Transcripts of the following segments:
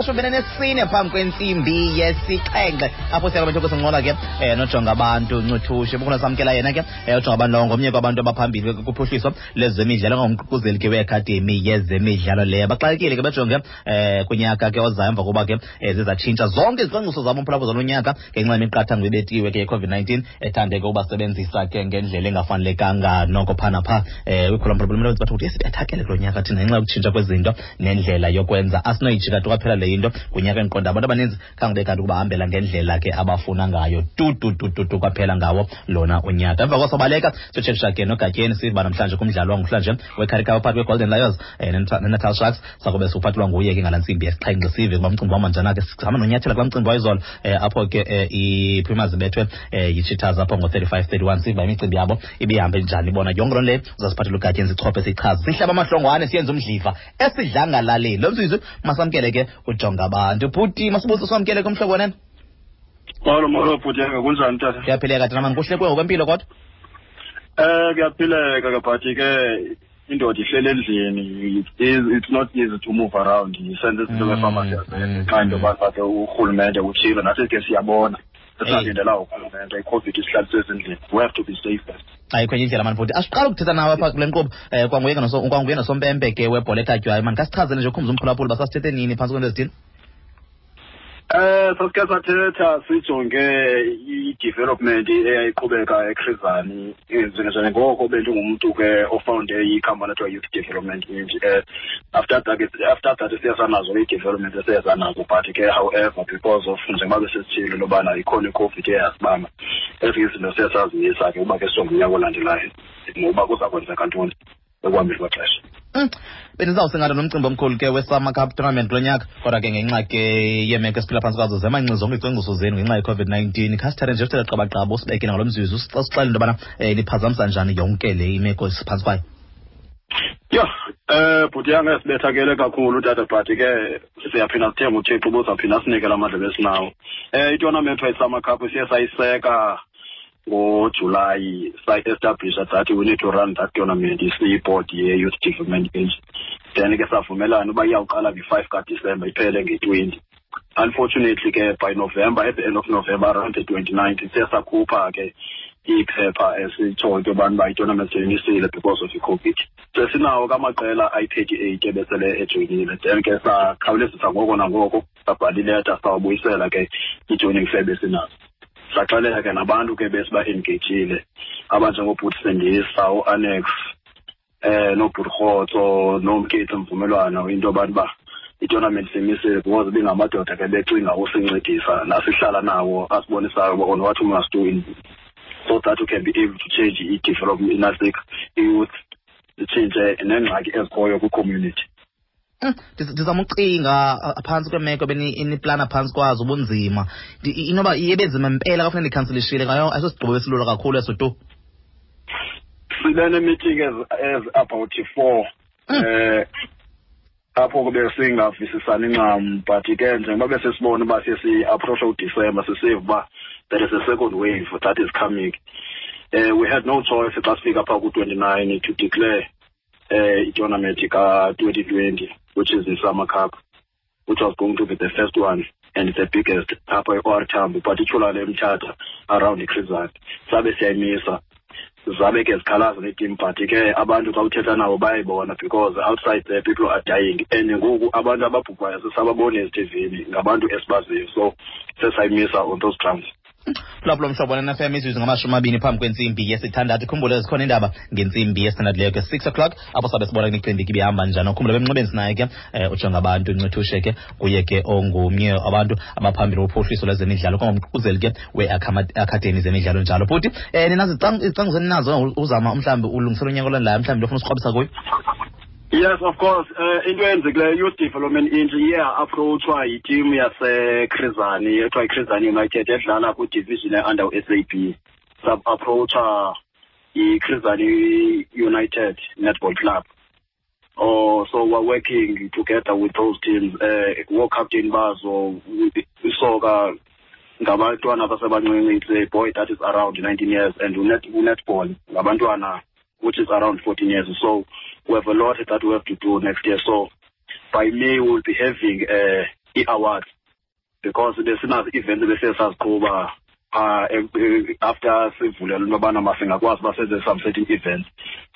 Shumi nesine phambi kwentsimbi yesixhenxe, apho siya kwabethu kusincola ke nojonga abantu Ncuthushe. Bukuna samkela yena ke ujonga abantu lowo, ngomnye kwabantu abaphambili kuphuhliso lezemidlalo, ngumququzeli ke weAkhademi yezemidlalo leyo. Baxakekile ke bejonge kunyaka ke ozayo, emva kokuba ke zizatshintsha zonke izicwangciso zabo umphulaphula zalo nyaka ngenxa yemiqathango ebetiwe ke ye-COVID-19, ethande ke ubasebenzisa ke ngendlela engafanelekanga noko phaa naphaa kwikhula mphulaphula. Bathi ukuthi sibethakele kulo nyaka thina ngenxa yokutshintsha kwezinto nendlela yokwenza. Asinoyijika tu kwaphela le into kunyaka. Endiqonda abantu abaninzi khange bekanti ukubahambela ngendlela ke abafuna ngayo tu tu tu tu tu kwaphela ngawo lona unyaka. Emva kosobaleka siyotshekisha ke noGatyeni, siva namhlanje kumdlalo wangokuhlanje weCurrie Cup phakathi kweGolden Lions neNatal Sharks. Sakube siwuphathelwa nguye ke ngala ntsimbi yesixhenxe, sive kuba mcimbi wahamba njani. Ke sihamba nonyathela kulaa mcimbi wayizolo apho ke iPumas ibethwe yiCheetahs apho ngo-35-31, siva imicimbi yabo ibihambe njani bona. Yonke loo nto leyo uzasiphathela uGatyeni, sichophe, sichaze, sihlaba amahlongwane, siyenze umdliva esidlangalaleni. Lo mzuzu masamkele ke ujonga abantu. Bhuti Masibuso, samkele kumhlobo wenene. Molo, molo bhuti, kunjani tata? Kuyaphileka tata mani, kuhle ngokwempilo kodwa? Kuyaphileka ke, but ke indoda ihlele endlini, it's not easy to move around, senze izinto befama xa into yoba ke urhulumente utshilo, nathi ke siyabona sisalindela urhulumente. I-COVID isihlalise ezindlini, we have to be safe first. Ayikho enye indlela mani futhi. Asiqala ukuthetha nawe apha kule nkqubo, kwanguye nosompempe ke webhola ekhatywayo mani. Khasichazele nje, ukhumza umphulaphuli uba sasithethe nini, phantsi kwento ezithile. Sasike sathetha sijonge i-development eyayiqhubeka eChris Hani, njengoko bendingumntu ke ofounde ikhampani ethiwa Youth Development Inc. After that siye sanazo i-development esiye sanazo, but ke however, because of njengoba besesitshilo lobana ikhona iCOVID eyasibamba, ezinye izinto siye sazimisa ke uba ke sijonge unyaka olandelayo ngokuba kuza kwenzeka ntoni ekuhambeni kwexesha. Bendizawusingatha nomcimbi omkhulu ke weSummer Cup tournament kulo nyaka, kodwa ke ngenxa ke yeemeko esiphila phantsi kwazo zemanci zonke izicwangciso zenu ngenxa ye-COVID-19. Khasithathe nje usithethe qabaqaba, usibekele ngalo mzuzu, usixelele into yobana niphazamisa njani yonke le imeko esiphantsi kwayo. Yho, bhuti yange, sibethakele kakhulu tata, but ke siyaphinda sithembe uThixo uba uzawuphinda asinike la mandla besinawo. I-tournament i-Summer Cup siye sayiseka ngoJulayi, sayi-establisha that we need to run that tournament, isiyi-board ye-Youth Development Age. Then ke savumelana uba iyawuqala nge-5 kaDisemba iphele nge-20. Unfortunately ke by November, at the end of November, around the 29th, siye sakhupha ke iphepha esitshoyo into yobana uba i-tournament seyimisile because of i-COVID. Sesinawo ke amaqela ayi-38 ebesele ejoyinile. Then ke sakhawulezisa ngoko nangoko, sabhala ileta, sawabuyisela ke i-joining fee besinazo. Saxelela ke nabantu ke besiba-engagile abanjengobhuti Sendisa, uAnnex, noobhuti Rhotso, noMketsi Mvumelwano, into yobantu uba i-tournament simisile, because ibingamadoda ke becinga usincedisa nasihlala nawo, asibonisayo uba on what we must do in so that we can be able to change i-development inasik i-youth, itshintshe neengxaki ezikhoyo kwi-community. Ndizama ucinga phantsi kweemeko beniplana phantsi kwazo, ubunzima. Inoba iye benzima mpela xa funeka nikhansilishile ngayo, ayisosigqibo esilula kakhulu eso tu. Sibe nee-meeting as about four apho kube singavisisani ncam, but ke njengoba besesibona uba siye si-approacha uDisemba, sisiva uba there is a second wave that is coming, we had no choice xa sifika phaa ku-29 to declare i-tournament ka-2020, which is the Summer Cup, which was going to be the first one and the biggest apha e-OR Tambo, particularly eMthatha around iChris Hani. Sabe siyayimisa, zabe ke zikhalaza neetim, but ke abantu xa uthetha nabo bayayibona, because outside there people are dying, and ngoku abantu ababhubhayo sisababona ezithivini, ngabantu esibaziyo, so sesayimisa on those grounds. Lapho mhlobo neFM, imizuzu 20 phambi kwentsimbi yesithandathu. Khumbule zikhona iindaba ngentsimbi yesithandathu leyo ke, 6 o'clock, apho sabe sibona imicimbi ke ibihamba njani. Ukhumbule bemnxebeni sinaye ke ujonga abantu Ncithushe ke, kuye ke ongumnye abantu abaphambili wophuhliso lwezemidlalo, kwangumququzeli ke weakhademi zemidlalo njalo. Bhuti, ninazo izicwangciso eninazo uzama mhlawumbi ulungisela unyaka olandelayo, mhlawumbi lofuna usikrobisa kuyo? Yes, of course. Into eyenzekileyo, Youth Development Inc iye approachwa yitimu yaseChris Hani ethiwa yiChris Hani United edlala kwidivision e-under u-SAB. Sab-approacha iChris Hani United Netball Club. Oh, so we're working together with those teams. Wo-captain bazo isoka ngabantwana abasebancinci, it's a boy that is around 19 years, and netball ngabantwana which is around 14 years. So we have a lot that we have to do next year. So by May we'll be having ii-awards, because besinazo ii-events ebesiye saziqhuba after sivulelwe into yobana masingakwazi uba senze some certain events.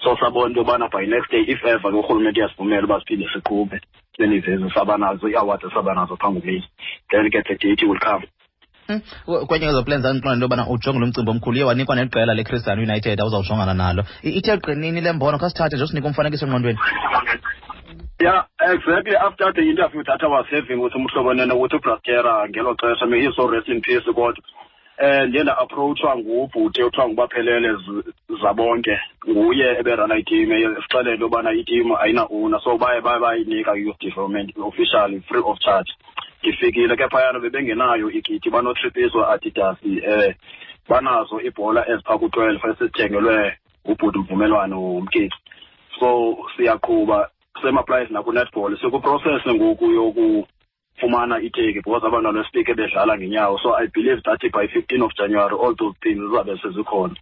So sabona into yobana by next day, if ever ke urhulumente uyasivumela uba siphinde siqhube sibe sabanazo ii-awards esabanazo phambi kuMeyi, then ke the date will come. Kwenye kwezo plans zandiqonda into yobana ujonge lo mcimbi omkhulu, uye wanikwa neqela leChris Hani United awuzawujongana nalo. Ithe qinini le mbono? Khasithathe nje usinike umfanekiso engqondweni. Yeah, exactly. After the interview that I was having with uMhlobo Nene, with uBrastera ngelo xesha, may he so rest in peace, kodwa ndiye nda-approachwa ngubhuti othiwa nguBaphelele Zabonke, nguye eberana iteam, esixelele into yobana iteam ayina-owner, so baye baye bayinika i-youth development officially free of charge. Ndifikile ke phayana, bebengenayo ikit, banotripiso Adidas, banazo iibhola eziphaa ku-12 esizithengelwe ngubhuti Mvumelwano Mkeki. So siyaqhuba, same applies naku-netball, sikwiprocess ngoku yokufumana iteki because abantwana besifike bedlala ngenyawo. So I believe that by 15 of January all those things zizabe sezikhona.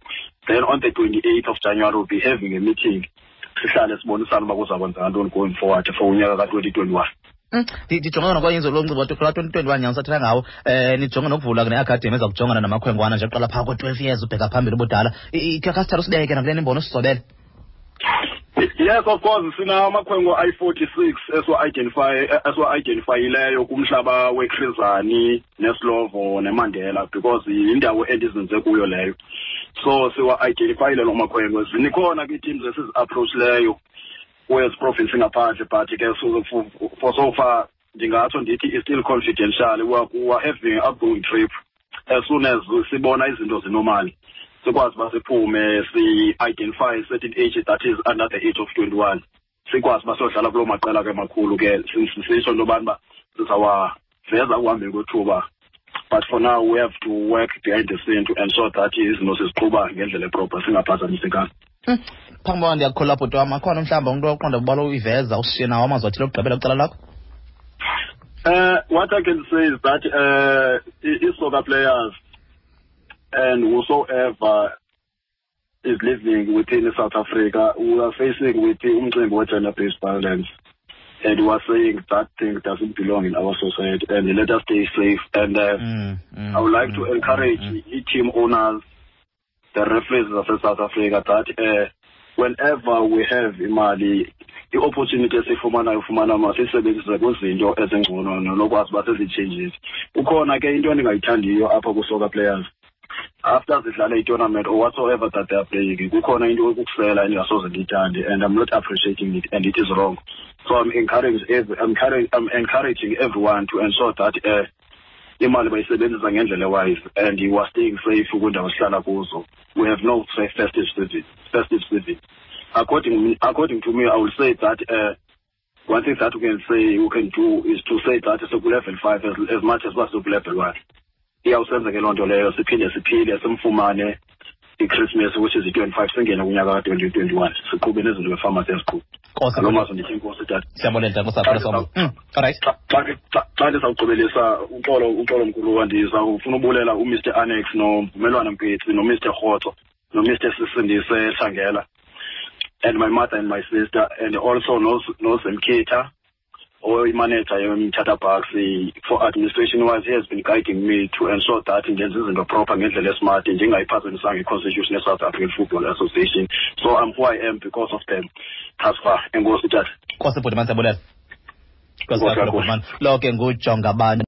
Then on the 28th of January we'll be having a meeting, sihlale sibonisane uba kuza kwenzeka ntoni going forward for unyaka ka-2021. Ndijonge nokwenza lo mcimbi kulaa 2021 nyanga sathetha ngawo, nijonge nokuvula ne-academy eza kujongana namakhwenkwana nje kuqala phaa ko-12 years ubheka phambili ubudala. Khasithatha usibeke nakule imbono usizobele. Yes, of course, sinamakhwenkwe ayi-46 esiwa-identifyileyo kumhlaba weChris Hani neSlovo neMandela, because yindawo endizinze kuyo leyo. So siwa-identifyile loo makhwenkwe. Zinikhona ke ii-teams esizi-approachileyo kwezi province ngaphandle, but ke for so far ndingatsho ndithi is still confidential. We are having outgoing trip. As soon as sibona izinto zinormal, sikwazi uba siphume si-identify certain age that is under the age of 21, sikwazi uba siyodlala kuloo maqela ke makhulu ke. Sisho into yobana uba sizawaveza ekuhambeni kwethuba, but for now we have to work behind the scene to ensure that izinto siziqhuba ngendlela eproper, singaphazamisekanga. Phambi koba ndiyakukholwa, bhuti wam, akhona mhlawumbi umntu oqonda ubala uyiveza, usishiye nawo amazwi athile okugqibela kwicala lakho? What I can say is that i-soccer players and whosoever is living within South Africa, we are facing with umcimbi we-gender-based violence. And we are saying that thing doesn't belong in our society and let us stay safe. And I would like to encourage team owners, the referees of South Africa, that whenever we have imali, i-opportunity esiyifumanayo ufumana masiyisebenzise kwizinto ezingcono nokwazi uba sezi-changes. Ukhona ke into endingayithandiyo apha ku-soccer players, after zidlale i-tournament or whatsoever that they are playing, kukhona into yokusela endingasoze ndiyithande, and I'm not appreciating it and it is wrong. So I'm encouraging everyone to ensure that imali bayisebenzisa ngendlela ewise and you are staying safe kwiindawo esihlala kuzo. We have no safe festive season. According to me, I will say that one thing that we can say we can do is to say that siku-level 5 as much as uba siku-level 1. Iyawusenza ke loo nto leyo siphinde siphile, simfumane iChristmas, which is i-25, singene kunyaka ka-2021, siqhube nezinto befama siyaziqhuba. Nkosi. Ngaloo mazwi ndithi inkosi, tata. Siyabulela, tata. Nkosi kakhulu. All right. Xa ndizawugqibelisa, uxolo, uxolo mkhulu, ndizawufuna ubulela uMr Annex noMvumelwano Mpetsi noMr Rhotso noMr Sisindise Hlangela and my mother and my sister and also noZemkitha oyimanager yoMthatha Bucks. For administration wise, he has been guiding me to ensure that ndenza izinto proper ngendlela esmart, ndingayiphazamisanga i-constitution ye-South African Football Association. So I'm who I am because of them thus far. Enkosi, tata. Nkosi, bhuti man, siyabulela. Nkosi Nkosi kakhulu, kakhulu. bhuti man. Lo ke ngujonga abantu.